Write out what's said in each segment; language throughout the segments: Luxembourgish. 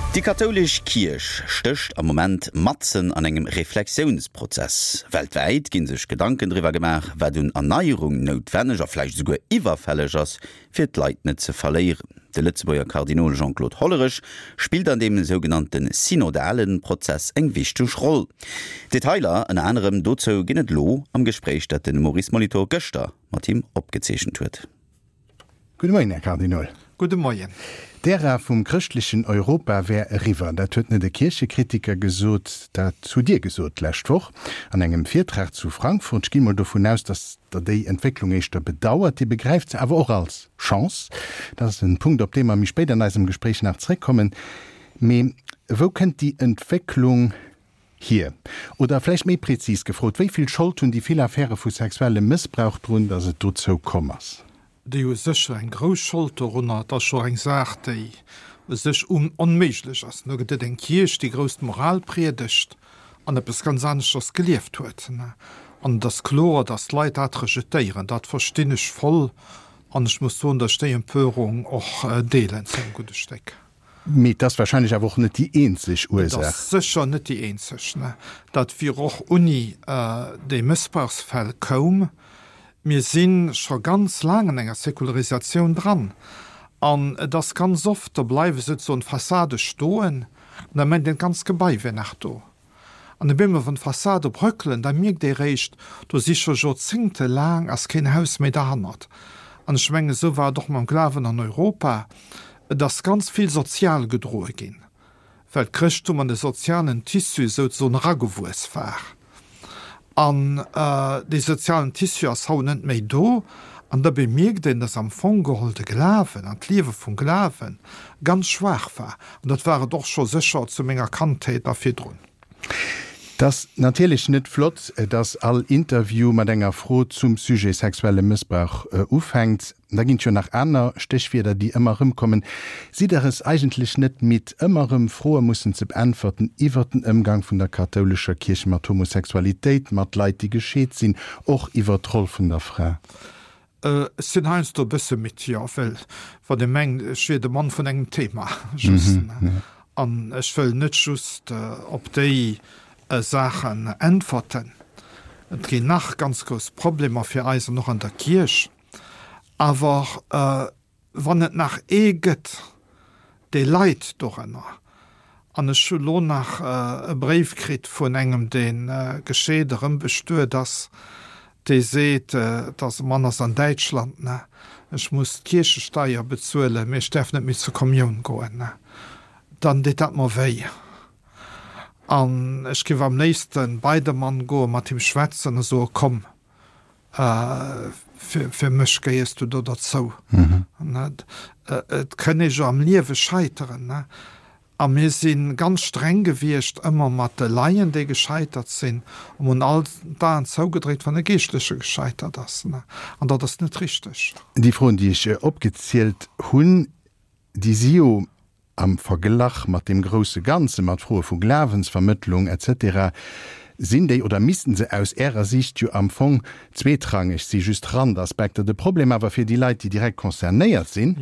Déi kathoulesch Kierch stécht am Moment matzen an engem Reflexiounsprozess. Weltwäit gi sech Gedanken driwwer gemaach, wat un Erneierung noutwenneg a vläicht esouguer iwwerfälleg ass, fir d'Leit net ze verléieren. De Lëtzebuerger Kardinol Jean-Claude Hollerech spillt an deem sougenannte synodale Prozess eng wichteg Roll. Detailer ënner anerem dozou ginn et elo am Gespréich, dat de Maurice Molitor gëschter mat him opgezeechent huet. Gudde Moien, Här Kardinol. Gudde Moien. D'Ära vum chrëschtlechen Europa wär eriwwer. Dat huet net e Kierchekritiker gesot, dat hutt Dir gesot d'lescht Woch an engem Virtrag zu Frankfurt. Ech ginn emol dovun aus, datt Der déi Entwécklung éischter bedauert. Dir begräift se awer och als Chance. Dat ass en Punkt, op dee mer méi spéit an eisem Gespréich nach zréckkommen. Mee wou kënnt déi Entwécklung Hier? Oder vläicht méi prezis gefrot, Wéi vill Schold hunn déi vill Affäre vu sexuellem Mëssbrauch drun, datt et dozou komm ass? Déi hu sécher eng grouss Schold dorunner. Et ass scho eng Saach, déi u sech onméiglech ass. Do gëtt et eng Kierch, déi grouss d'Moral priedegt an eppes ganz aneschters gelieft huet. An et ass kloer, datt d'Leit dat rejetéieren. Dat verstinn ech voll an ech muss soen, datt ech déi Empörung och deelen zu engem gudde Stéck. Mee et ass wahrscheinlech awer och net déi eenzeg Ursaach. Et ass sécher net déi eenzeg. Dat wier och unni déi Mëssbrauchsfäll koum. Mir si scho ganz laang an enger Säkularisatioun dran. An et ass ganz oft, do bleiwe souzesoen d'Fassade stoen an da mengt een, d'ganzt Gebai wier nach do. An op eemol, wann d'Fassade bröckelen, da mierkt ee réischt, do si scho joerzéngtelaang ass keen Haus méi derhannert. An ech mengen, esou war et och mam Glawen an Europa. Et ass ganz vill sozial gedroe ginn, well d'Chrëschttum an de sozialen Tissu souzesoen eragewuess war. An dee sozialen Tissu ass haut net méi do. An da bemierkt een, dass am Fong geholl de Glawen an d'Liewe vum Glawe ganz schwaach war. An dat war et och scho sécher zu menger Kandheet a virdrun. Et ass natierlech net flott, dass all Interview mat enger Fro zum Sujet sexuelle Mëssbrauch ufänkt. Da ginn et jo nach aner Stéchwierder, déi ëmmer erëmkommen. Sidd Der es eigentlech net midd, ëmmer erëm Froe mussen ze beäntwerten iwwer den Ëmgang vun der kathoulescher Kierch mat Homosexualitéit, mat Leit, déi gescheet sinn, och iwwer d'Roll vun der Fra? Ech sinn heiansdo e bësse midd, jo, well wann ee mengt, ech wier de Mann vun engem Thema just, an ech wëll net just op déi Saachen äntwerten. Et ginn nach ganz grouss Problemer fir eis an och an der Kierch, awer Wann et nach ee gëtt, dee leit dorënner, an ech hu lo nach e Bréif kritt vun engem, dee gescheet erëm bestuet ass, dee seet, et ass e Mann ass an Däitschland, ne, ech muss d'Kierchesteier bezuelen, mee ech däerf net méi zur Kommioun goen, ne, dann deet dat mer wéi. An ech géif am léifste bei de Mann goen, mat him schwätzen a soe, komm, Fir mech gehéiers du do derzou. Et kënn ee jo am Liewe scheiteren. A mir si ganz streng gewiescht ëmmer mat de Laien, déi gescheitert sinn, a mir hunn all d'Aen zougedréckt, wann e Geeschtleche gescheitert ass. An dat ass net richteg. Déi Froen, déi ech opgezielt hunn, déi si jo Am Verglach mat deem grousse Ganze, mat Froe vu Glawensvermëttlung etc. Sinn déi, oder missten se aus Ärer Siicht jo am Fong zweetrangeg si, just Randaspekter. De Problem awer fir déi Leit, déi direkt concernéiert sinn,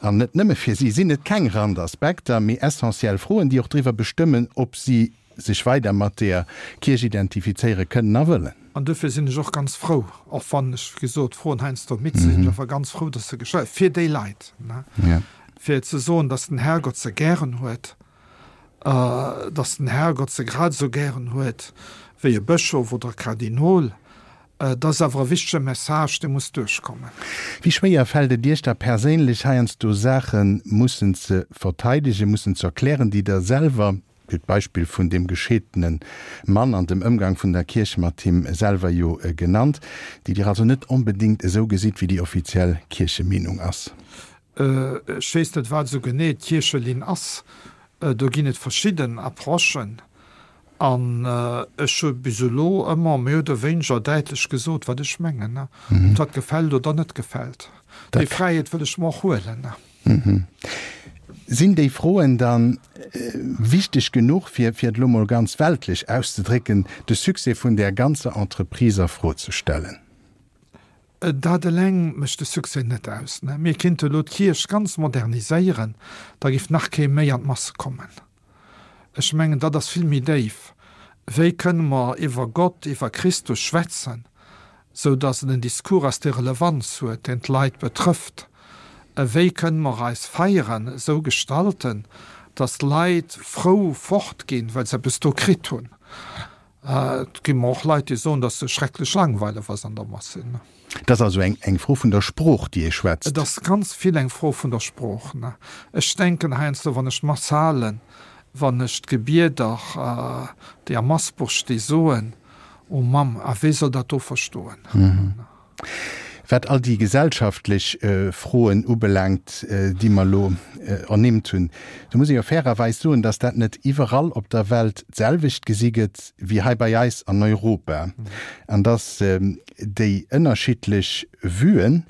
an net nëmme fir si, sinn et keng Randaspekter, mee essentiell Froen, déi och driwwer bestëmmen, ob si sech weider mat deeër Kierch identifizéiere kënnen a wëllen. An duerfir sinn ech och ganz frou, och wann ech, wéi gesot, d'Froen heiansdo midd sinn, sinn ech awer ganz frou, dass se gestallt, fir déi Leit, fir ze soen, dass den Herrgott se gären huet, dass den Herrgott se grad esou gären huet wéi e Bëschof oder e Kardinol. Et ass awer e wichtege Message, dee muss duerchkommen. Wéi schwéier fält et Iech da perséinlech, heiansdo Saache mussen ze verteidegen, mussen ze erklären, déi Der selwer, Dir hutt d'Beispill vun deem gescheedene Mann an dem Ëmgang vun der Kierch mat him selwer jo genannt, déi Dir also net onbedéngt esou gesitt, wéi déi offiziell Kierchemeenung ass? Ech weess net, wat esou genee d'Kierchelinn ass. Do ginn et verschidden Approchen. An ech hu bis elo ëmmer méi oder wéineger däitlech gesot, wat ech mengen, ob dat gefält oder net gefält. Déi Fräiheet wëll ech mer och huelen. Sinn déi Froen da wichteg genuch, fir, fir et elo mol ganz weltlech auszedrécken, de Succès vun där ganzer Entreprise a Fro ze stellen? Dat eleng mécht de Succès net aus. Mir kinnte elo d'Kierch ganz moderniséieren, da giff nach kee méi an d'Masse kommen. Ech mengen, dat ass vill méi déif. Wéi kënne mer iwwer Gott, iwwer Christus schwätzen, sou datt et en Discours ass, dee Relevanz huet, deen d'Leit betrëfft? Wéi kënne mer eis Feieren esou gestalten, datt d'Leit frou fortginn, well se eppes do kritt hunn? Et gi mer och Leit, déi soen, datt se schrecklech langweileg ass an der Mass sinn. Et ass also eng Fro vun der Sprooch, déi ee schwätzt. Et ass ganz vill eng Fro vun der Sprooch. Ech denken heiansdo, wann ech d'Mass halen, wann ech d'Gebieder, déi am Massbuch sti soen, O Mamm, a wee soll dat do verstoen? Wat all déi gesellschaftlech Froen ubelaangt, déi mer elo ernimmt hunn, do muss ee jo fairerweis soen, dass dat net iwwerall op der Welt d'selwecht gesi gëtt wéi hei bei eis an Europa an dass déi ënnerschiddlech Vuen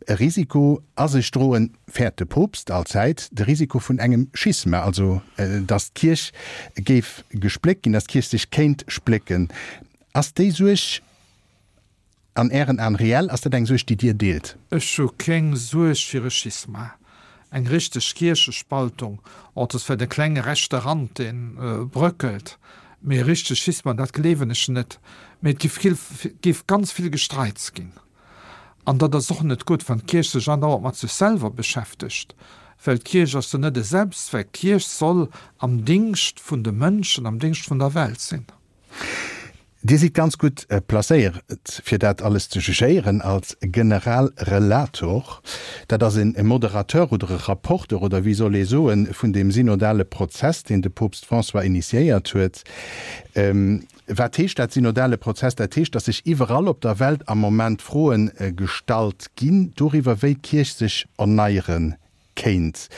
e Risiko a sech droen, fäert de Poopst allzäit de Risiko vun engem Schisma, also dass d'Kierch géif gespléckt ginn, dass d'Kierch sech kéint splécken. Ass déi Suerg an Ären Aen reell? Ass dat eng Suerg, déi Dir deelt? Ech hu keng Suerg fir e Schisma, eng richteg Kierchespaltung. Och et ass vläicht e klenge rechte Rand, dee bröckelt, mee e richtegt Schisma, dat gleewen ech net. Mee et géif ganz vill Gestreits ginn. An dat ass och net gutt, wann d'Kierch sech andauernd mat sech selwer beschäftegt, well d'Kierch ass jo net e Selbstzweck. D'Kierch soll am Dingscht vun de Mënschen, am Dingscht vun der Welt sinn. Dir sidd ganz gutt placéiert, fir dat alles ze jugéieren als Generalrelator. Dat ass e Moderateur oder e Rapporteur oder wéi soll ee soen, vun deem synodale Prozess, deen de Poopst François initiéiert huet. Wat heescht dat, synodale Prozess? Dat heescht, datt sech iwwerall op der Welt am Moment Froe gestallt ginn doriwwer, wéi d'Kierch sech erneiere kéint.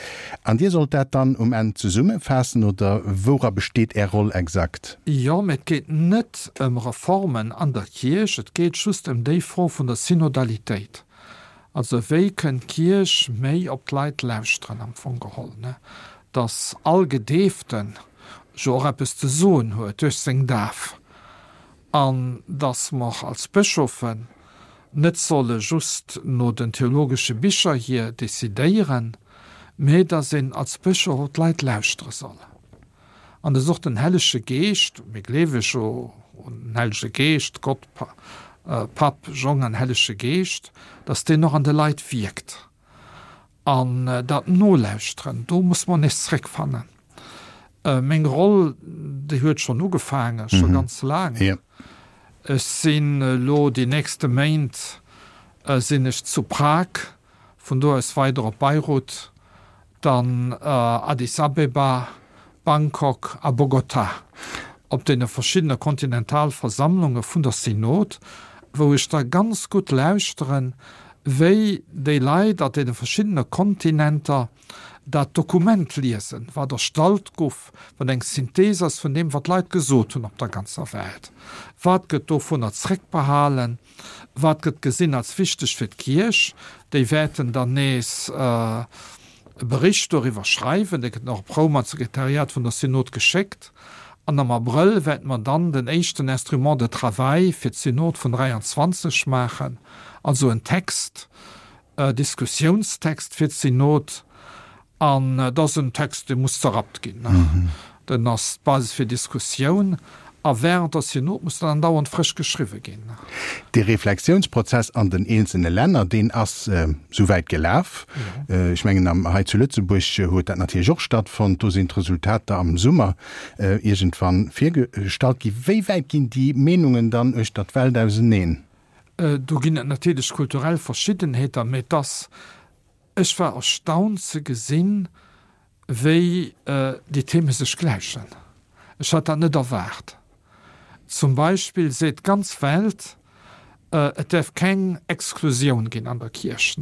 An Dir sollt dat dann um Enn zesummefaassen, oder woura besteet Är Roll exakt? Jo, mä et geet net ëm Reformen an der Kierch, et geet just ëm déi Fro vun der Synodalitéit. Also wéi kënnt d'Kierch méi op d'Leit lauschteren am Fong geholl, ne? Datt all Gedeeften jo och eppes ze soen huet duerch seng Daf an datt mer als Bëschofen net solle just no den theologesche Bicher hier decidéieren, mä datt een als Bëschof op d'Leit lauschtere soll. An dass och den Hellege Geescht, mir gleewe jo un den Hellege Geescht, Gott Papp, Jong an Hellege Geescht, dass deen och an de Leit wierkt. An dat Nolauschteren, do muss mer nees zréckfannen. Meng Roll, déi huet schonn ugefaangen, scho ganz laang. Ech sinn elo déi nächste Méint sinn ech zu Prag, vun do aus weider op Beirut, dann Addis Abeba, Bangkok a Bogotá, op deene verschiddene Kontinentalversammlunge vun der Synod, wou ech da ganz gutt lauschteren, wéi déi Leit an deene verschiddene Kontinenter dat Dokument liesen, wat erstallt guff, wat eng Synthese ass vun deem, wat d'Leit gesot hunn op der ganzer Welt. Wat gëtt dovunner zréckbehalen? Wat gëtt gesinn als wichteg fir d'Kierch? Déi wäerten dann nees e Bericht doriwwer schreiwen. Dee gëtt nach op Roum an d'Sekretariat vun der Synod geschéckt. An am Abrëll wäerte mer dann den éischten Instrument de travail fir d'Synod vun 23 maachen, also en Text, e Diskussiounstext fir d'Synod. An et ass en Text, dee muss zerrappt ginn. Den ass d'Basis fir Diskussioun. A während der Synod muss dann andauernd frësch geschriwwe ginn. Dee Reflexiounsprozess an den eenzelne Länner, deen ass souwäit gelaf. Ech mengen, hei zu Lëtzebuerg huet dat natierlech och stattfonnt. Do sinn d'Resultater am Summer iergendwann virgestallt ginn. Wéi wäit ginn déi Meenungen dann uechter d'Welt auseneen? Do ginn et natierlech kulturell Verschiddenheeter, mä et ass Ech war erstaunt ze gesinn, wéi déi Theme sech gläichen. Ech hat dat net erwaart. Zum Beispill seet d'ganz Welt, et däerf keng Exklusioun ginn an der Kierch.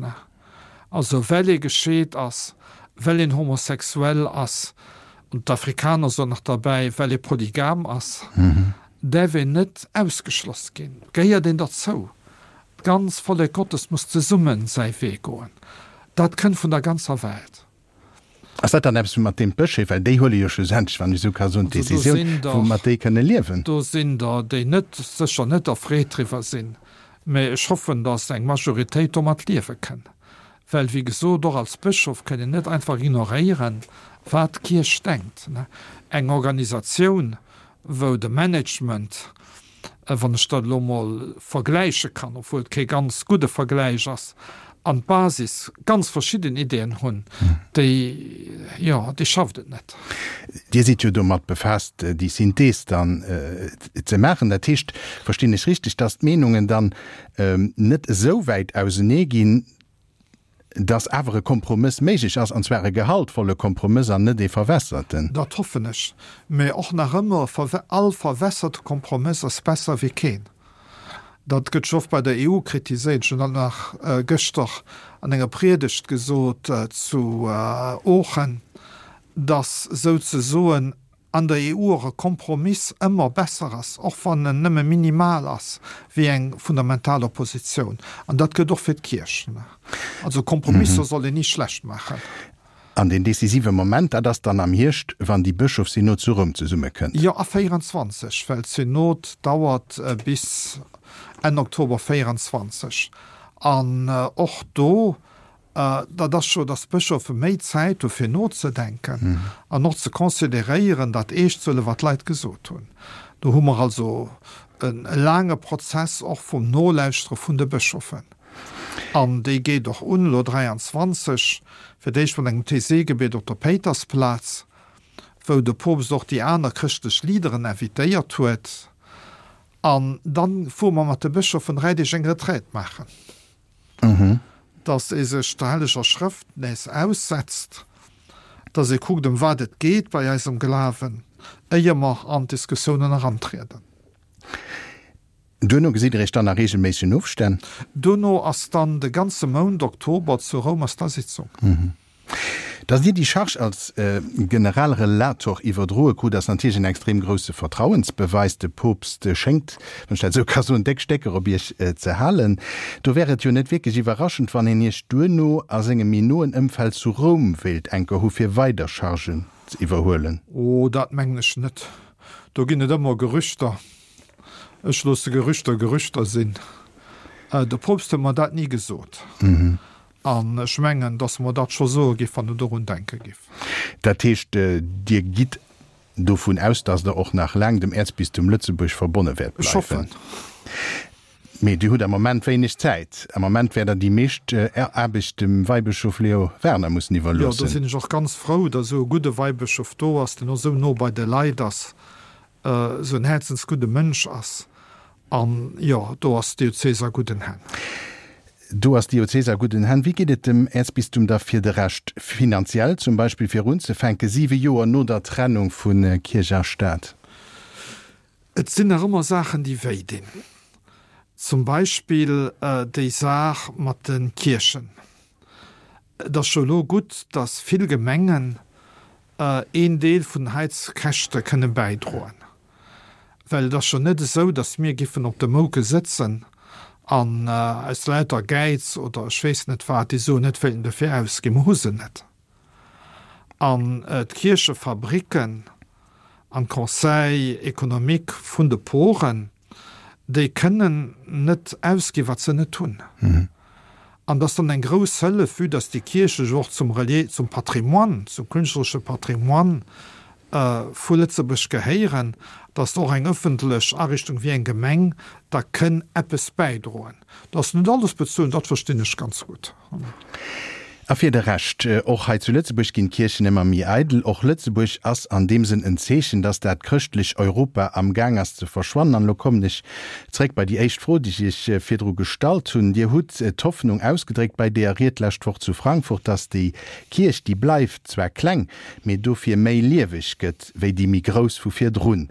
Also well ee gescheet ass, well een homosexuell ass, an d'Afrikaner soen nach derbäi, well ee polygam ass, däerf een net ausgeschloss ginn, gehéiert een derzou. D'ganz Vollek Gottes muss zesummen säi Wee goen. Dat kënnt vun der ganzer Welt. Ass dat dann eppes, mat deem d'Bëscheef, well déi huele jo schlussendlech, wann ech esou ka soen, d'Decisioun, woumat déi kënne liewen? Do sinn der, déi net, sécher net erfreet driwwer sinn, mä ech hoffen, datt eng Majoritéit domat liewe kënn. Well, wéi gesot, och als Bëschof kënn een net einfach ignoréieren, Wat d'Kierch denkt. Eng Organisatioun, wou de Management, wann ech dat elo emol vergläiche kann, obwuel et kee ganz gudde Vergläich ass, an d'Basis ganz verschidden Ideeën hunn, déi, jo, déi schafft et net. Dir sidd jo domat befaasst, déi Synthees dann ze maachen. Dat heescht, verstinn ech richteg, dass d'Meenungen dann net esou wäit ausenee ginn, dass awer e Kompromëss méiglech ass, an zwar e gehaltvolle Kompromëss an net ee verwässerten? Dat hoffen ech. Mä och nach ëmmer, all verwässerte Kompromëss ass besser wéi keen. Dat gëtt jo oft bei der EU kritiséiert. Ech hunn dat nach gëschter an enger Priedegt gesot zu Oochen, dass souzesoen an der EU och e Kompromiss ëmmer besser ass, och wann en nëmme minimal ass, wéi eng fundamental Oppositioun. An dat gëllt och fir d'Kierch. Also Kompromisser soll een ni schlecht maachen. An deen decisive Moment, dat ass dann am Hierscht, wann déi Bëschofssynod zu Roum zesummekënnt. Jo, a 24, well d'Synod dauert bis Enn Oktober 24. An och do Dat ass jo, datt d'Bëschofe méi Zäit hu fir nozedenken an och ze consideréieren, dat eescht ze huelen, wat d'Leit gesot hunn. Do hu mer also e laange Prozess och vum Nolauschtere vun de Bëschofen. An déi geet och un elo 23, fir d'éischt mat engem Taizé-Gebiet op der Péitersplaz, wou de Poopst och déi aner chrëschtlech Leaderen invitéiert huet. An dann fuere mer mat de Bëschofen 3 Deeg eng Retraite maachen. Dass ee sech der Helleger Schrëft nees aussetzt, dass ee kuckt, ëm wat et geet bei eisem Glawen, éier mer an d'Diskussiounen erantrieden. Duerno gesitt Der Iech dann a reegelméissegen Ofstänn? Duerno ass dann de ganze Mount Oktober zu Roum ass da Sitzung. Datt Dir déi Charge als Generalrelator iwwerdroe krut, ass natierlech en extrem grousse Vertrauensbeweis. De Poopst schéngt, wann ech dat esou ka soen, déck Stécker op Iech ze halen. Do wär et jo net wierklech iwwerraschend, wann een Iech duerno a sengem méi noen Ëmfeld zu Roum wéilt enker hu fir weider Chargen ze iwwerhuelen. Oh, dat mengen ech net. Do ginn et ëmmer Gerüchter. Ech loosse Gerüchter Gerüchter sinn. De Poopst huet mer dat ni gesot. An ech mengen, dass e mer dat scho soe giff, wann en dorun denke giff. Dat heescht, Dir gitt dovun aus, dass Der och nach laang dem Äerzbistum Lëtzebuerg verbonne wäert Ech hoffen. bleiwen? Mee Dir hutt am Moment wéineg Zäit. Am Moment wäert Der déi meescht Aarbecht dem Weibëschof Leo Werner mussen Jo, do iwwerloossen. sinn ech och ganz frou, dass esou e gudde Weibëschof do ass, deen och esou no bei de Leit ass, esou en häerzensgudde Mënsch ass. An jo, do ass d'Diözes a gudden Hänn. Do ass d'Diözes a gudden Hänn. Wéi geet et dem Äerzbistum da fir de Rescht finanziell, zum Beispill fir unzefänke siwe Joer no der Trennung vu Kierch a Staat? Et sinn nach ëmmer Saachen, déi wéi dinn. Zum Beispill déi Saach mat de Kierchen. Et ass scho elo gutt, datt vill Gemengen een Deel vun den Heizkäschte kënne bäidroen. Well et ass jo net esou, datt mir giffen op de Mouke sëtzen an aus lauter Gäiz oder ech weess net wat déi Suen net wéilten dofir ausginn. Mer hu se net. An d'Kierchefabricken an d'Conseils économiques vun de Poren, déi kënnen net ausginn, wat se net hunn. An dat ass dann eng grouss Hëllef, vue dass déi Kierche jo och zum Relier, zum Patrimoine, zum künstleresche Patrimoine vu Lëtzebuerg gehéieren, dass och eng ëffentlech Ariichtung wéi eng Gemeng da kënn eppes bäidroen. Dass net alles bezuelen, dat verstinn ech ganz gutt. A fir de Rescht, och hei zu Lëtzebuerg ginn d'Kierchen ëmmer méi eidel. Och Lëtzebuerg ass an deem Sënn en Zeechen, dass dat chrëschtlech Europa am Gaang ass ze verschwannen. An elo kommen ech zréck bei déi éischt Fro, déi ech Iech virdru gestallt hunn. Dir hutt d'Hoffnung ausgedréckt bei deeër Ried d'lescht Woch zu Frankfurt, dass déi Kierch, déi bleift, zwar kleng, mee dofir méi lieweg gëtt wéi déi méi grouss vu virdrun.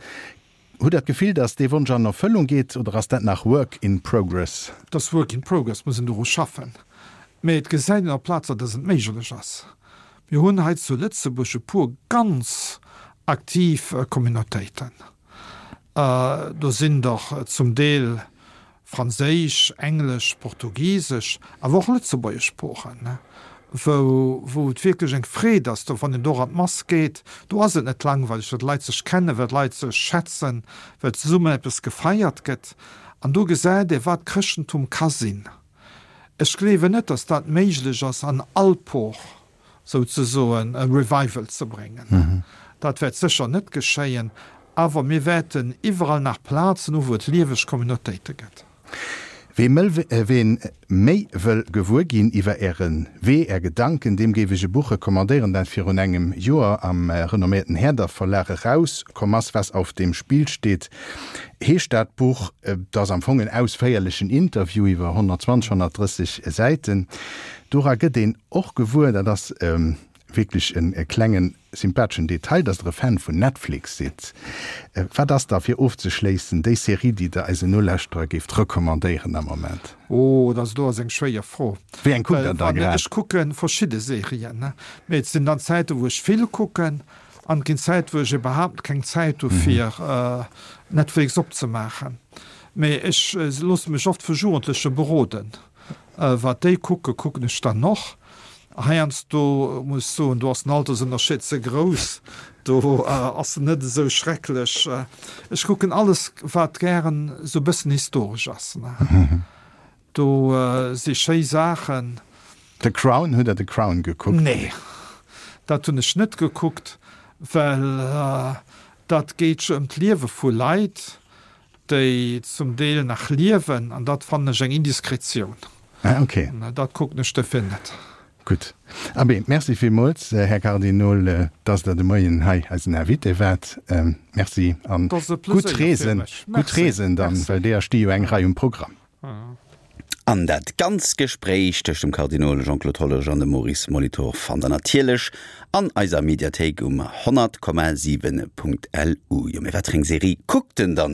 Hutt Der d'Gefill, datt dee Wonsch an Erfëllung geet oder ass dat nach work in progress? Et ass work in progress, muss een doru schaffen. Mee et gesäit een op Plazer, datt et méiglech ass. Mir hunn hei zu Lëtzebuerg e puer ganz aktiv Communautéiten. Do sinn der zum Deel franséisch, englesch, portugisesch, awer och lëtzebuergesch Sproochen, wou, wou et wierklech eng Freed ass, do wann een do an d'Mass geet, do ass et net langweileg, well d'Leit sech kennen, well d'Leit sech schätzen, well zesummen eppes gefeiert gëtt. An do gesäit ee wat Chrëschtentum ka sinn. Ech gleewen net, datt dat méiglech ass an all Por. Souzesoen e Revival ze bréngen. Dat wäert sécher net geschéien, awer mir wäerten iwwerall nach Plazen hu wou et lieweg Communautéite gëtt. Wee méi wëll gewuer ginn iwwer Äre Wee, Är Gedanken, deem géif ech e Buch recommandéieren, dat virun engem Joer am renomméierten Herder Verlag eraus komm ass. Was auf dem Spiel steht heescht dat Buch. Et ass am Fong en ausféierlechen Interview iwwer 120, 130 Säiten. Dora gëtt een och gewuer, dat ass wierklech e klengen sympatheschen Detail, dass Der e Fan vun Netflix sidd. Wat ass da, fir ofzeschléissen, déi Serie, déi Der eisen Nolauschterer géift recommandéieren am Moment? Oh, dat do ass eng schwéier Fro. Wéi eng kuckt Der da grad? Ech kucke verschidde Serien, mee et sinn dann Zäiten, wou ech vill kucken an et ginn Zäiten, wou ech iwwerhaapt keng Zäit hu fir Netflix opzemaachen. Mee ech loosse mech oft vu Jugendleche beroden. Wat déi kucken, kucken ech dann och. Heiansdo muss ech soen, do ass den Altersënnerscheed ze grouss, do ass en net esou schrecklech. Ech kucken alles, wat gären esou e bëssen historesch ass. Do si schéi Saachen. The Crown, hutt Der The Crown gekuckt? Nee, dat hunn ech net gekuckt, well dat geet jo ëm d'Liewe vu Leit. déi zum Deel nach liewen, an dat fannen ech eng Indiskretioun. Ah, ok. Dat kucken ech dofir net. Gutt. Abee, Merci villmools, Här Kardinol, dass Der de Moien hei eisen Invité waart. Merci an gutt Reesen. Gutt Reesen dann, well deeër sti jo eng Rei um Programm. An dat ganz Gespréich tëscht dem Kardinol Jean-Claude Hollerich an dem Maurice Molitor fannt der natierlech an eiser Mediathéik um 100,7.lu. Jo, mee wat fir eng Serie kuckt en dann elo?